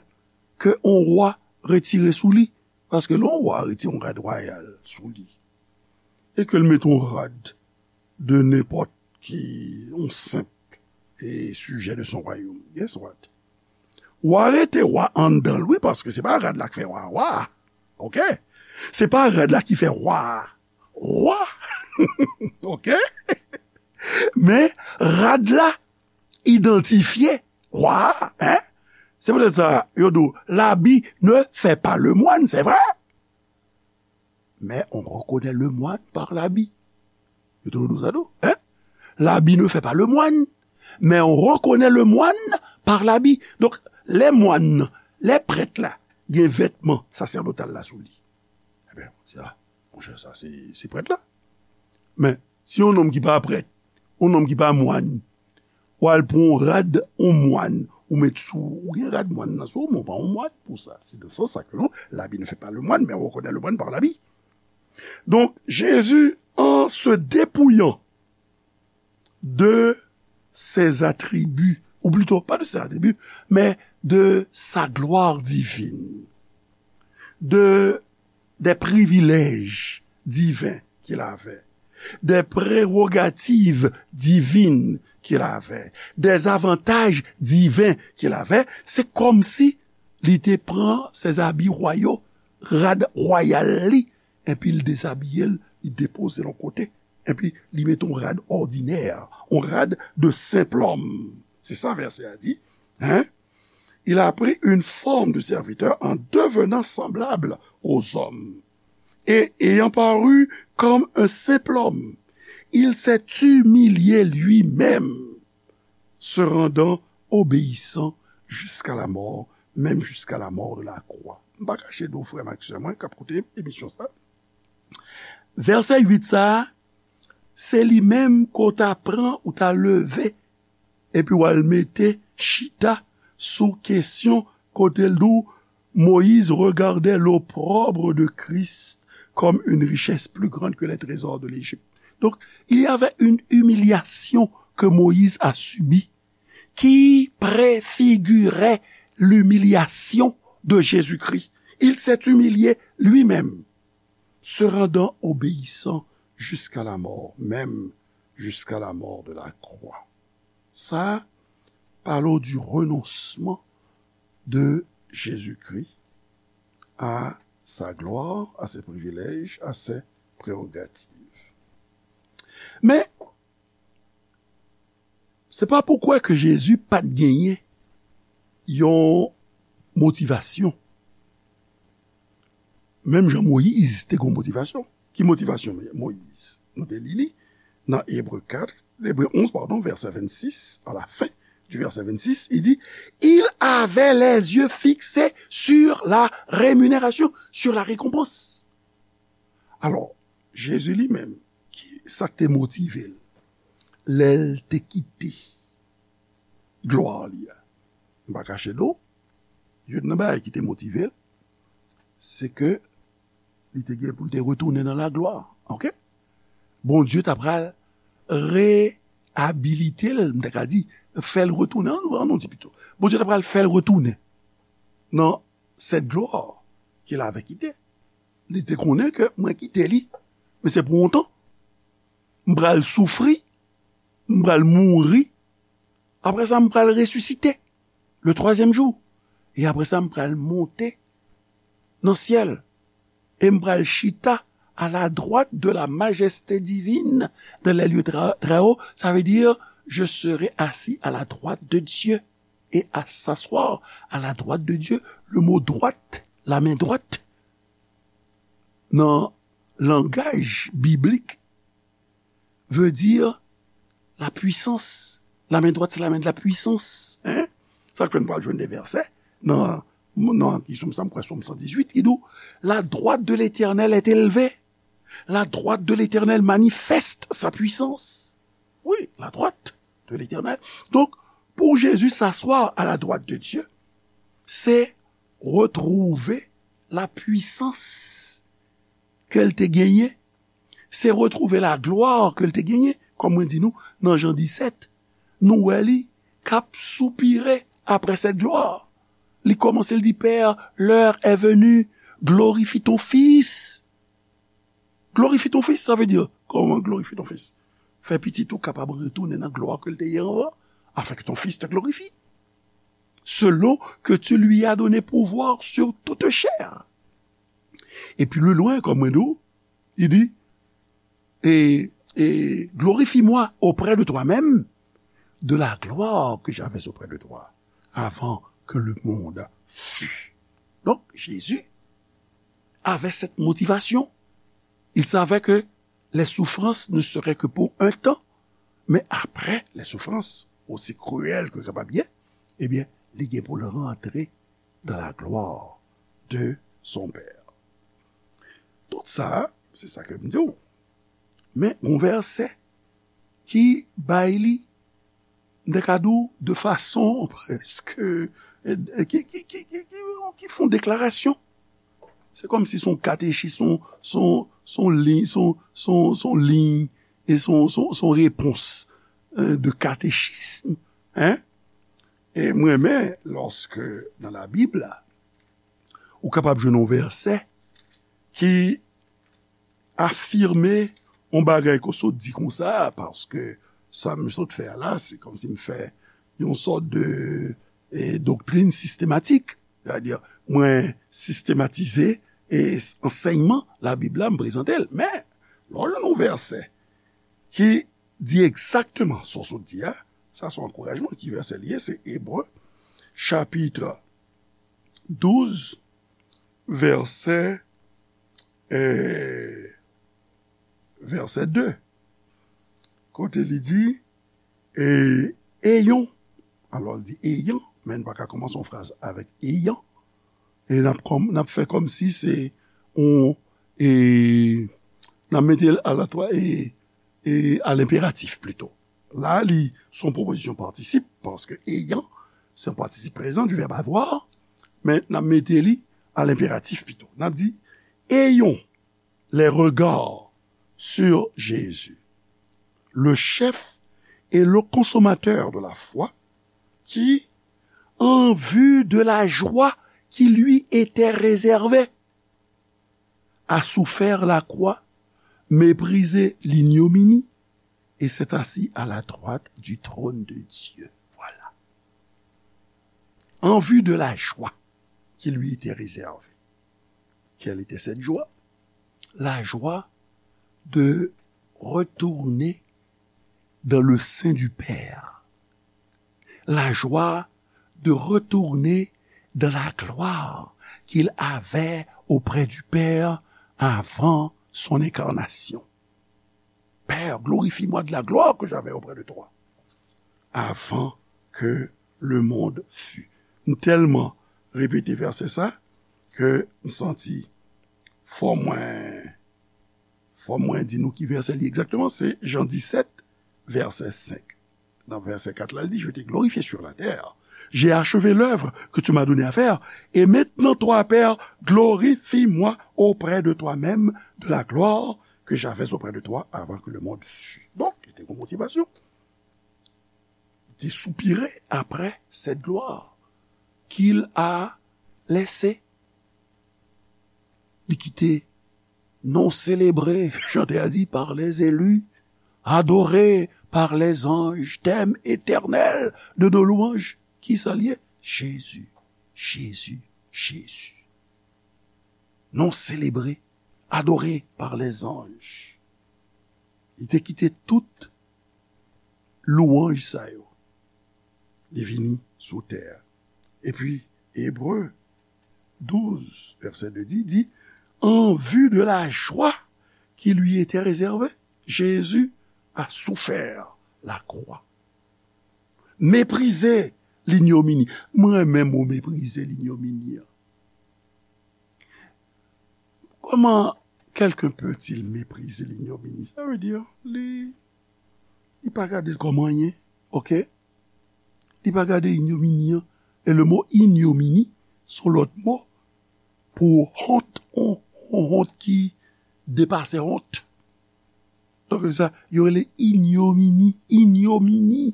ke yon wa retire sou li. Paske lè yon wa retire yon rad wayal sou li, e ke l mete yon rad de nenpòt ki, yon senp, e, sijè de son wayòm, guess what? Wa rete wa anndan l, wi, paske se pa rad la k fè wa, wa. Oke? Se pa rad la ki fè wa, wa. Oke? Men rad la idantifye wa, en? Se poutèt sa, yo di w, l'habit ne fait pas le moine, c'est vrai. Mais on reconnaît le moine par l'habit. Yo toujou di w sa tou, hein? L'habit ne fait pas le moine, mais on reconnaît le moine par l'habit. Donk, lè mwan nan, lè prèt la, gen vètman sasèdotal la sou li. Ebyen, se sa, monchè, sa se, se prèt la. Men, si yon nonm ki pa prèt, yon nonm ki pa mwan, w al pran yon rad yon mwan, ou met sou, ou gen rad mwan nan sou, men w pa yon mwan pou sa. Se nan sans sa ke non, l'habit ne fait pas le moine, mais on reconnaît le moine par l'habit. Donc, Jésus, en se dépouillant de ses attributs, ou plutôt, pas de ses attributs, mais de sa gloire divine, de, des privilèges divins qu'il avait, des prérogatives divines qu'il avait, des avantages divins qu'il avait, se kòmsi li te pran ses habits royaux, rad wayal li, epi l dezabiye l, li depoze l yon kote, epi li mete yon rad òdinè, yon rad de senp lòm. Se sa vèsè a di, hein? Il a pris une forme de serviteur en devenant semblable aux hommes. Et ayant paru comme un simple homme, il s'est humilié lui-même, se rendant obéissant jusqu'à la mort, même jusqu'à la mort de la croix. M pa kache di w, frè m ak sè mwen k ap koute emisyon sa, vèsè uit sa a, se li menm ke w ta pran, ou ta leve, epi w al mete chita sou kesyon kote l di w, Moïse regardait l'opprobre de Christ comme une richesse plus grande que les trésors de l'Égypte. Donc, il y avait une humiliation que Moïse a subie qui préfigurait l'humiliation de Jésus-Christ. Il s'est humilié lui-même, se rendant obéissant jusqu'à la mort, même jusqu'à la mort de la croix. Ça parle du renoncement de Jésus-Christ à sa gloire, à ses privilèges, à ses prérogatives. Men, se pa pou kwè ke Jezi pa t genyen yon motivasyon. Menm jan Moyiz te gen yon motivasyon. Ki motivasyon Moyiz? Nou te li li nan Ebre kat, Ebre onz, padon, vèsè vennsis, à la fin du verset vingt-six, il dit, il avait les yeux fixés sur la rémunération, sur la récompense. Alò, Jezi li menm, ki, sa k te motive l, lè l te kite glwa li a? M pa kache nou, youn nan bagay ki te motive l, se ke li te gen pou l te retounen nan laglwa. Oke? Bondye ta pral reyabilite l, m ta ka di, fè l retounen, an, an nou di pito. Bondye ta pral fè l retounen nan cette gloire qu'il avait quittée. Li te konnen ke mwen kite li, men se pou yon tan. M pral soufri, m pral mouri. Apre sa, m pral resisite le troisième jour. E apre sa, m pral monte nan syèl. E m pral chita à la droite de la majesté divine dans les lieux très, très hauts. Ça veut dire, je serai assis à la droite de Dieu et à s'asseoir à la droite de Dieu. Le mot droite, la main droite, nan langaj biblik, veut dire la puissance. La main droite, c'est la main de la puissance. Hein? Sa k fè n pral jwenn de vèsè nan, nan ki Sòm, sa m kwè, Sòm san dizuit, ki di w, la droite de l'Éternel est élevée. La droite de l'Éternel manifeste sa puissance. Oui, la droite de l'Éternel. Donk, pou Jezi s'asseoir à la droite de Dieu, se retwouve la puissance ke l te genyen, se retwouve laglwa ke l te genyen, kòm mwen di nou, nan Jan disèt, nou wè li k ap soupire après cette gloire. Li kòmanse, l di, Père, l'heure est venue, glorifie ton Fils. Glorifie ton Fils, sa vle di, kòman glorifie ton Fils? Fè pitit ou kapab retounen nan glwa ke l te ye anvan, afin que ton Fils te glorifie. Selon que tu lui as donné pouvoir sur toute chair. E pi lwen, kòm mwen di w, li di, et, et glorifie-moi auprès de toi-même de la gloire que j'avais auprès de toi avant que le monde fût. Donc, Jésus avait cette motivation. Il savait que les souffrances ne seraient que pour un temps, mais après les souffrances, aussi cruelles que kapab ye, ebyen, li gen pou l rantre dans la gloire de son Père. Tout sa, se sa ke m di w. Men, yon vèsè ki bay li, m te ka di w, de fason preske, ki, ki, ki, ki, ki, ki fè yon deklarasyon. Se kòmsi se yon katechis, se yon, se yon, se yon liy, se yon, se yon, se yon liy, e se yon, se yon, se yon repons, euh, de katechism, hein? E mwen renmen, lòske nan Labib la, ou kapab jwenn yon vèsè ki afime yon bagay ke w sot di konsa, paske sa m sot fè a la, se kòmsi m fè yon sòt de, e, doktrin sistematik. Sètadi, mwen sistematize, e, ansèyman Labib la, m prezante l. Men, lè w jwenn yon vèsè ki di egzakteman sa w sot di a, sa se yon ankourajman. Ki vèsè li ye? Se Ebre, chapit douz, vèsè, e, vèsè de. Kote li di, e, ayons. Alò, li di ayant, men n pa ka kòmanse yon fraz avèk ayant. E n ap kòm, n ap fè kòmsi se yon, e, n ap mete l a la twa, e, e, a lenperatif plito. La, li se yon pwopozisyon patisip, paske ayant, se yon patisip prezan du verbe avoir, men n ap mete li a lenperatif pito. N ap di, ayons les regards sur Jésus, le chef et le consommateur de la foi, qui, en vue de la joie qui lui était réservée, a souffert la croix, méprisé l'ignominie, et s'est assis à la droite du trône de Dieu. Voilà. En vue de la joie qui lui était réservée. Quelle était cette joie? La joie de retourner dans le sein du Père. La joie de retourner dans la gloire qu'il avait auprès du Père avant son incarnation. Père, glorifie-moi de la gloire que j'avais auprès de toi avant que le monde fût. M tèlman repete vèsè sa ke m santi fò mwen, fò mwen di nou ki vèsè li egzakteman. Se Jan disèt, vèsè senk. Nan vèsè kat la, li di, je t'ai glorifié sur la terre. J'ai achevé l'œuvre que tu m'as donné à faire. Et maintenant, toi, Père, glorifie-moi auprès de toi-même de la gloire que j'avais auprès de toi avant que le monde fût. Donk, li te gen motivasyon. Li te soupire après cette gloire qu'il a laissée. Li kite non sélébré, chantè a di, par les élus, adoré par les anges, thème éternel de nos louanges. Kisa l ye? Jezi, Jezi, Jezi. Non sélébré, adoré par les anges. Li te kite tout lwanj sa yo. Li vini sou tè a. Epi, Ebre douz, vèsè de di, di, en vue de la joie qui lui était réservée, Jésus a souffert la croix. Méprisé l'ignominie. Mwen renmen mo méprisé l'ignominie an. Comment quelqu'un peut-il mépriser l'ignominie? Sa vle di, li, li pa gade l kòm anyen, oke? Li pa gade ignomini an. E le mo ignomini, se yon lòt mo pou wont, yon, yon wont ki depase wont. Donk, se sa, yo rele ignomini, ignomini.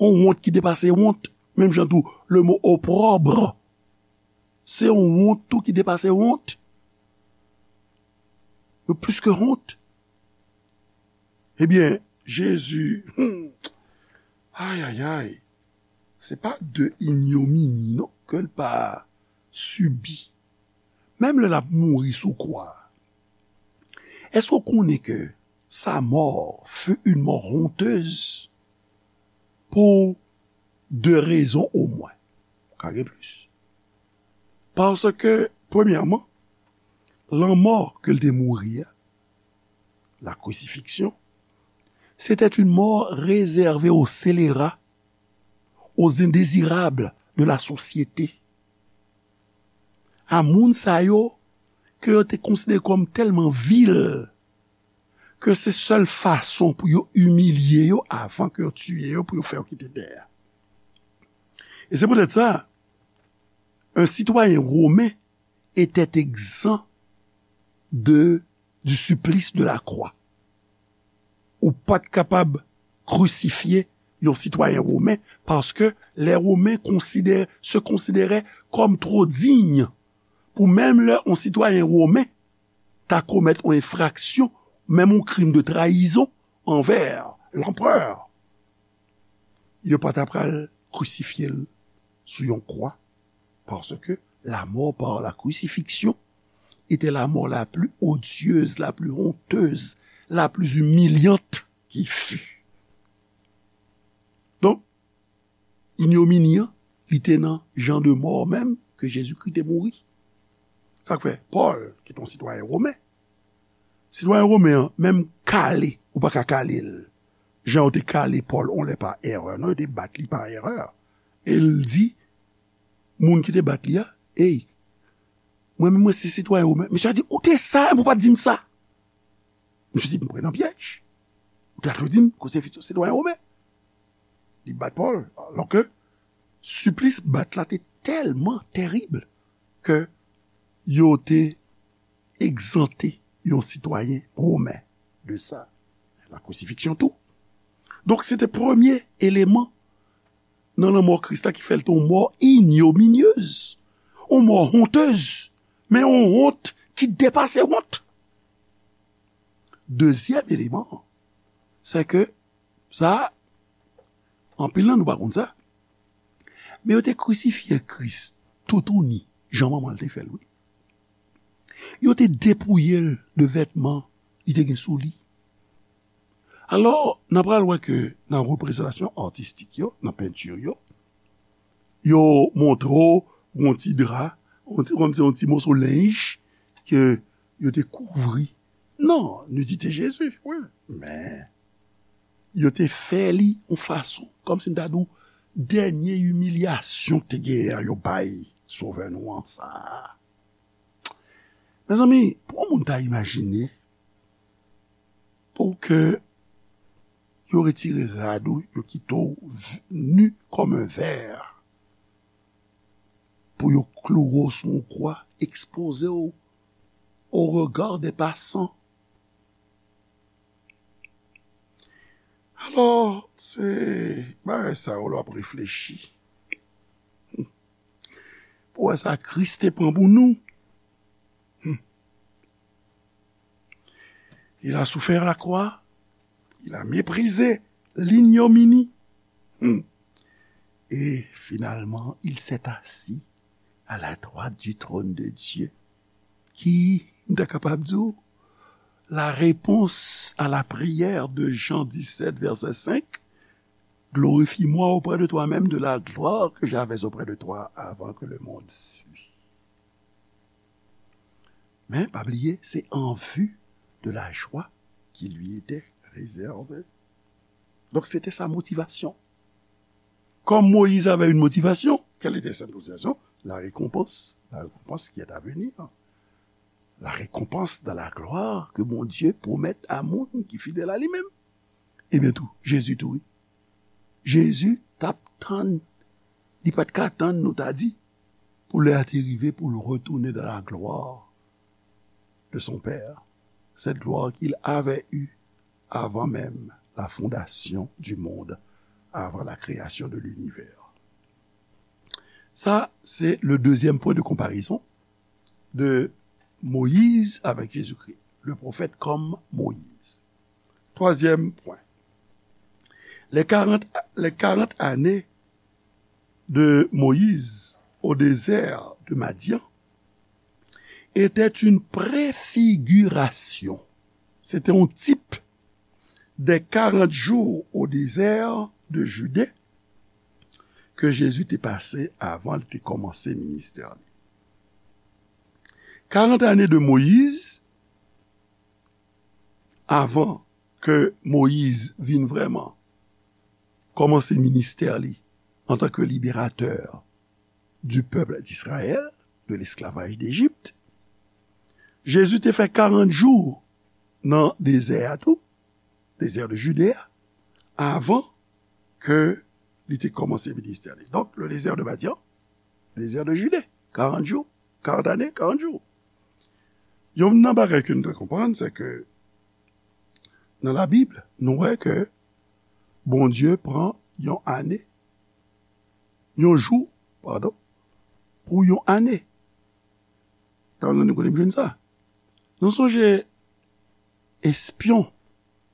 Yon wont ki depase wont. Menm jan tou, le mo opprobre, se yon wont tou ki depase wont. Yo plis ke wont. Ebyen, Jezi, hmm, ay, ay, ay, se pa de ignomini, non, ke l pa sibi. Menm lè l ap mouri sou kwa a, èske w konnen ke sa mort fut une mort honteuse pour de rezon omwen. Ka gen plis. Paske, premyèman, lanmò ke l te mouri a, la crucifixion, c'était une mort réservée aux scélérats, aux indésirables de la société. A moun sa yo ke yo te konsidere kòm tèlman vil ke se sèl fason pou yo imilye yo avan ke yo tiye yo pou yo fè yo kite tè a. E se poutèt sa, un citoyen romain était exempt de, du supplice de la croix. Ou pa t kapab krisifye yon sitwayen women, paske les Romains considè-, se considéraient comme trop dignes pou menm lè yon sitwayen women ta komèt yon enfraksyon, menm yon krim de trayizon anvè lanperè, yo pa ta pral krisifye l sou yon kwa, paske la mort par la crucifixion était la mort la plus odieuse, la plus honteuse, la plus humiliante qui fut. Donk, inyomini an, li te nan jan de mò menm ke Jezikri te mouri. Sa k fè, Pòl, ki te yon sitwayen women, sitwayen women an, menm kale, ou pa ka kale l. Jan yo te kale Pòl, on lè pa erè, non, yo te bat li pa erè. E l di, moun ki te bat li a, ey, mwen menm mwen se sitwayen women. Mesye a di, ou te sa, epi ou pa t di m sa. Misye di, m pran nan pyèj. Ou ta dwe di m ke w se sitwayen women. Li bat Pòl, alòske siplis bat la te tèlman terib ke yo te egzante yon sitwayen women de sa. La crucifixion tou. Donk, se te premye eleman nan lanmò Kris la ki fè l te yon mò ignominieuse, yon mò honteuse, men yon wont ki depase wont. Dezyèm eleman, se ke sa, anpil nan nou pa konn sa, men yo te krisifye Kris toutouni, jan manman l te fè l, wi. Yo te depouye l de vètman li te gen sou li. Alò, n a pral wè ke nan reprezantasyon atistik yo, nan penti yo, yo montre w yon ti dra, yon ti, kòmsi yon ti moso lenj ke yo te kouvri. Non, nudité Jésus, wi. Men, yo te fè li yon fason, kòmsi m ta di w, dènye imilyasyon ki te genyen an, yo bay Sovè nou an sa a. Mezanmi, pou yon moun ta imajine, pou ke yo retire rad ou, yo kite w v-, nu kòm un ver, pou yo kloure w sou yon kwa, ekspoze w au regard des passants. Alò, se bagay sa yo lè w ap reflechi. Pou wè sa Kris te pran pou nou. Hmm. Il a souffert la croix, il a méprisé l'ignominie. Hmm. Et finalement, il s'est assis à la droite du trône de Dieu. Ki, m ta kapab di w, la réponse à la prière de Jean dix-sept, verset cinq, glorifie-moi auprès de toi-même de la gloire que j'avais auprès de toi avant que le monde sût. Men, pa bliye, c'est en vue de la joie qui lui était réservée. Donk, se te sa motivasyon. Comme Moïse avait une motivation, quelle était cette motivation? La récompense, la récompense qui est à venir. La récompense dans la gloire que Bondye pwomèt a moun ki fidèl a li menm. Ebyen tou, Jezi tou, wi. Jezi t ap tann, li pa t ka tann, nou ta di, pou lè a te rive pou l retounen dans la gloire de son Père, cette gloire qu'il avait eue avant même la fondation du monde, avant la création de l'univers. Sa, se le deuxième point de comparaison de Moïse avec Jésus-Christ, le prophète comme Moïse. Troisième point, les quarante, les quarante années de Moïse au désert de Madian étaient une préfiguration. C'était un type des quarante jours au désert de Judée ke Jezi te pase avan li te kòmanse ministè li. Karant ane de Moyiz, avan ke Moyiz vin vrèman kòmanse ministè li antanke liberatè du peuple d'Israël, de l'esclavage d'Égypte. Jezi te fè karant jou nan dezè a tou, dezè de Jide a, avan ke li te kòmanse ministè li. Donk, le désert de Madian, le désert de Judée, karant jou, karant ane, karant jou. Youn nan bagay ke nou dwe konprann, se ke nan Labib, nou wè ke Bondye pran yon ane, yon jou, padon, pou yon ane. Sa vle di kote m jwenn sa? Nou sonje espyon,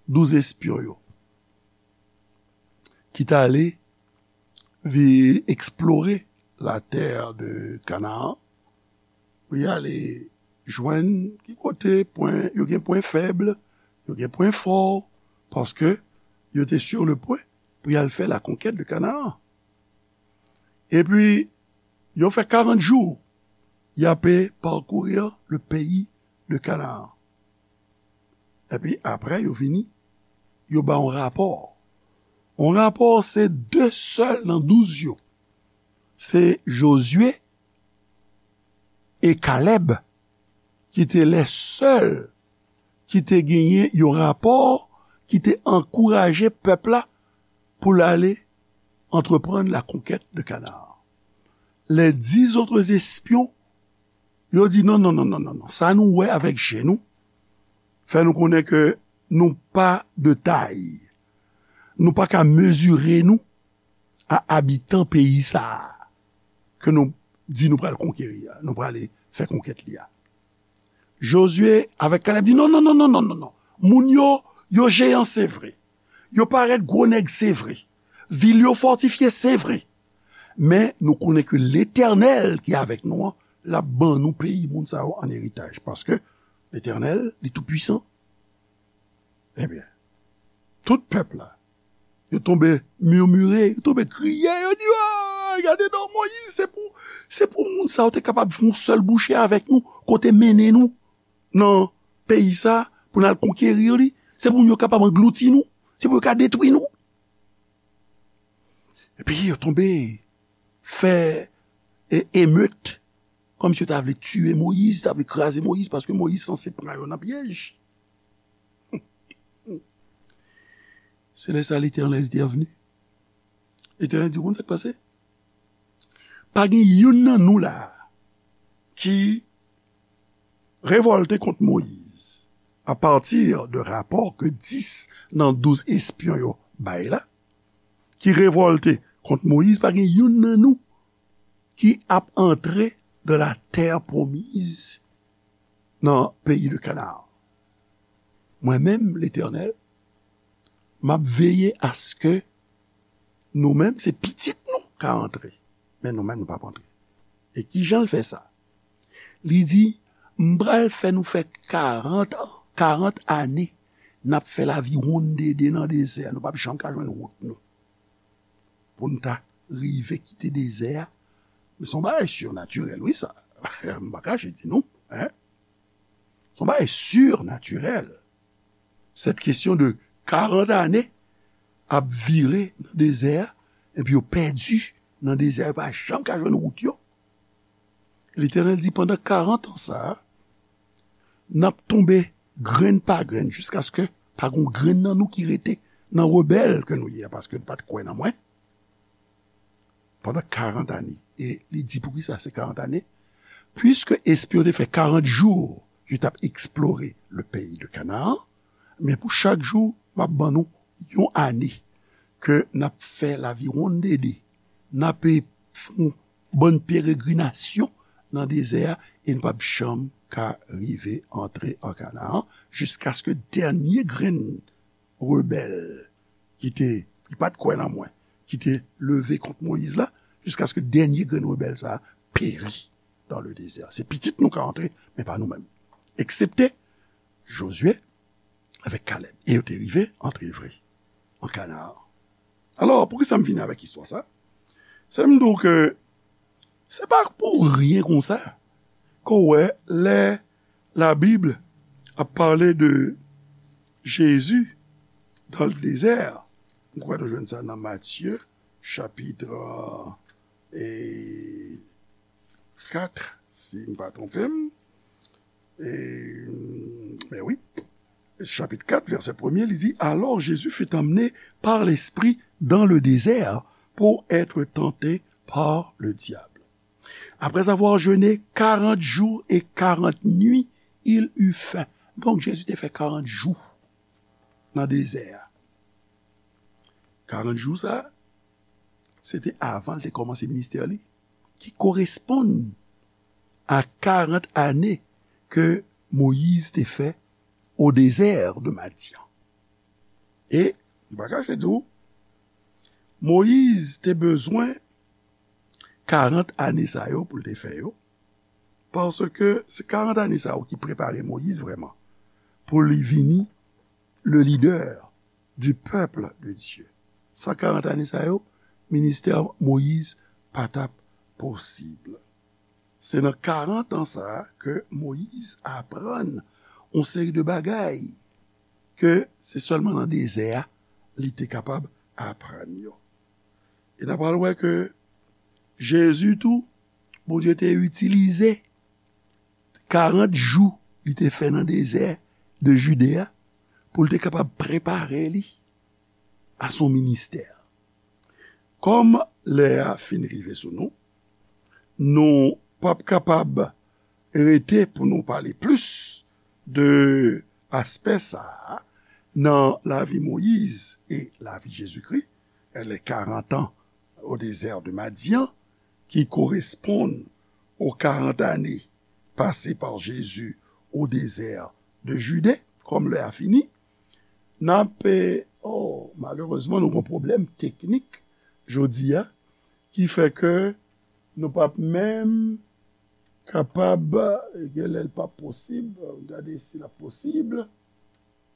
douz espyon yo, ki t ale vi eksplore la terre de Canaan, pou y ale jwenn ki kote pwen, yo gen pwen fèb, yo gen pwen fò, paske yo te sur le pwen pou y al fè la conquête de Canaan. Epi, yo fè karant jou, y ape parcourir le pays de Canaan. Epi, apre, yo vini, yo ba yon rapò. Yon rapò, se de sèl nan douz yo. Se Jozye e Kalèb ki te lè sèl ki te genyen yon rapò ki te ankouraje pèp la pou l ale antreprann la conquête de Canaan. Les dix autres espions, yo di, "Non, non, non, non, non, non. Sa nou wè avèk je nou, fè nou konnen ke nou pa de tay. Nou pa ka mezire nou a abitan peyi sa a ke nou di nou pral konkeri a, nou prale fè konkèt li a." Jozye avèk Kalèb di, "Non, non, non, non, non, non, non. Moun yo, yo jeyan, se vre. Yo parèt gwo nèg, se vre. Vil yo fòtifye, se vre. Men nou konnen ke Letènèl ki avèk nou an, l ap ban nou peyi moun sa yo an eritaj. Paske Letènèl, li toupwisan." Ebyen, tout pèp la, yo tonbe mimire, yo tonbe kriye, yo di, "Ah, gade non, Moyiz, se pou, se pou moun sa yo te kapab fè yon sèl bouche avèk nou, kote mennen nou nan peyi sa, pou n al konkeri li, se pou moun yo kapab anglouti nou, se pou yo ka detwi nou." Epi yo tonbe fè e, emet, kòmsi yo ta vle tiye Moyiz, ta vle kraze Moyiz, paske Moyiz sanse pran yo nan pyèj. Se lè sa Letènèl te vini. Letènèl di, "Ou konn sa k pase? Pa gen youn nan nou la a ki revòlte kont Moyiz, apati de rapò ke dis nan douz espyon yo bay la, ki revòlte kont Moyiz, pa gen youn nan nou ki ap antre dans la terre promise, nan peyi de Kanaan. Mwen menm, Letènèl, m ap veye aske nou menm, se pitit nou ka antre, men nou menm, nou p ap antre." E kijan l fè sa? Li di, "M pral fè nou fè karant an, karant ane, n ap fè laviwonndede nan dezè a, nou p ap janm ka jwenn wout nou." Pou n ta rive kite dezè a. Men se yon bagay sirnatirèl, wi, sa. M pa kache di nou, en. Se yon bagay sirnatirèl. Cette question de karant ane ap vire nan dezè a, epi yo pèdi nan dezè a, yo pa janm ka jwenn wout yo. Letènèl di, "Pandan karant an sa a, n ap tonbe grenn pa grenn, jiskaske pa gon grenn nan nou ki rete nan rebèl ke nou ye a, paske nou pa t kwè nan mwen." Pandan karant ane. E li di, poukisa se karant ane? Piske espyon te fè karant jou, yo t ap eksplore le peyi de Kanaan, men pou chak jou, m ap ban nou yon ane ke n ap fè laviwonndede, n ap fè yon bann peregrinasyon nan dezè a, e n p ap janm ka rive antre an Kanaan, jiskaske dènye grenn rebèl ki te, ki pa t kwè nan mwen, ki te leve kont Moyiz la, jiskaske dènye grenn rebèl sa a peri dans le désert. Se pitit nou ka antre, men pa nou menm. Eksepte Jozye avèk Kalèb. E yo te rive antre vre an Kanaan. Alò, poukisa m vini avèk istwa sa? Se m di w ke se pa pou ryen konsa ke w wè lè Labib ap pale de Jezi dans le désert. M kwè nou jwenn sa nan Matye, chapit, e, kat, si m pa twonpe m. E, men wi, chapit kat, vèsè premye, li di, Alors Jésus fut emmené par l'Esprit dans le désert pour être tenté par le diable. Après avoir jeûné quarante jours et quarante nuits, il eut faim. Donk, Jezi te fè karant jou nan dezè a. Karant jou sa, se te avan l te kòmanse ministè li, ki koresponn a karant ane ke Moyiz te fè au désert de Madian. E, m pa kache di w, Moyiz te bezwen karant ane sa yo pou l te fè yo, paske se karant ane sa yo ki prepare Moyiz vrèman pou li vini le leader du peuple de Dieu. San karant ane sa yo, ministè Moyiz pa t ap posib. Se nan karant an sa a ke Moyiz aprann yon seri de bagay ke se sèlman nan dezè a li te kapab aprann yo. E n a pral wè ke Jezi tou, Bondye te itilize karant jou li te fè nan dezè de Jide a pou l te kapab prepare li a son ministè. Kòm lè a fin rive sou nou, nou p ap kapab rete pou nou pale plis de aspè sa a nan lavi Moyiz e lavi Jezikri, les quarante ans au désert de Madian, ki koresponn aux quarante années passées par Jésus au désert de Judée, kòm lè a fini, n ap, eh, oh, malerezman, nou gen pwoblèm teknik jodi a, ki fè ke nou p ap menm kapab, gen lè l p ap posib, gade si l ap posib,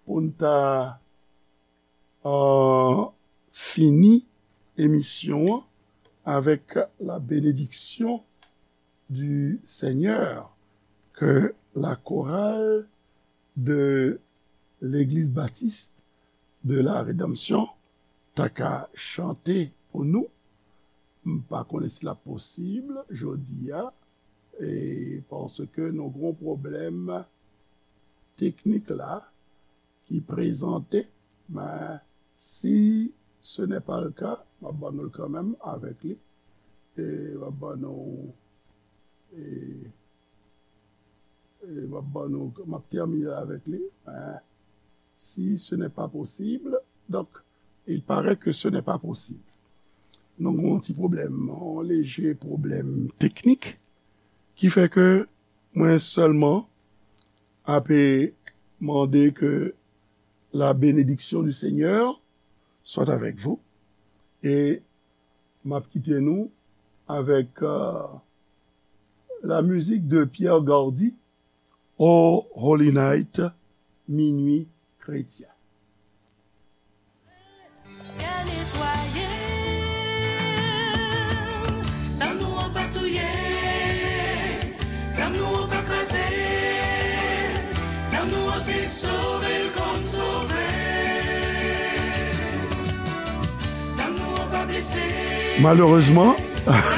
pou n ta, euh, fini emisyon an avec la bénédiction du Seigneur, que la chorale de l'Église baptiste de la Rédemption ta ka chante pou nou. M pa konnen si l ap posib jodi a, e paske nou gen yon pwoblèm teknik la ki prezante, men si ce n'est pas le cas, m ap ban nou l kanmenm avèk li, e m ap ban nou, e, e m ap ban nou, m ap tèmine avèk li, men si ce n'est pas possible, donc, il paraît que ce n'est pas possible. Nou gen yon ti pwoblèm, yon leje pwoblèm teknik, ki fè ke mwen sèlman ape mande que la bénédiction du Seigneur soit avec vous. E m ap kite nou avèk, euh, la musique de Pierre Gardy, Oh Holy Night, Minuit Chrétien. Kè netwaye, zam nou an pa touye, zam nou an pa kraze, zam nou an se sove l kòm sove. Zam nou an pa blese. Malerezman,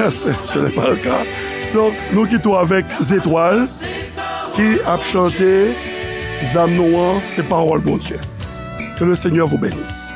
ce, ce n'est pas le cas. Donk, nou kite w avèk Zetwal ki ap chante Zam nou an, se pawòl Bondye. Que le Seigneur vous bénisse.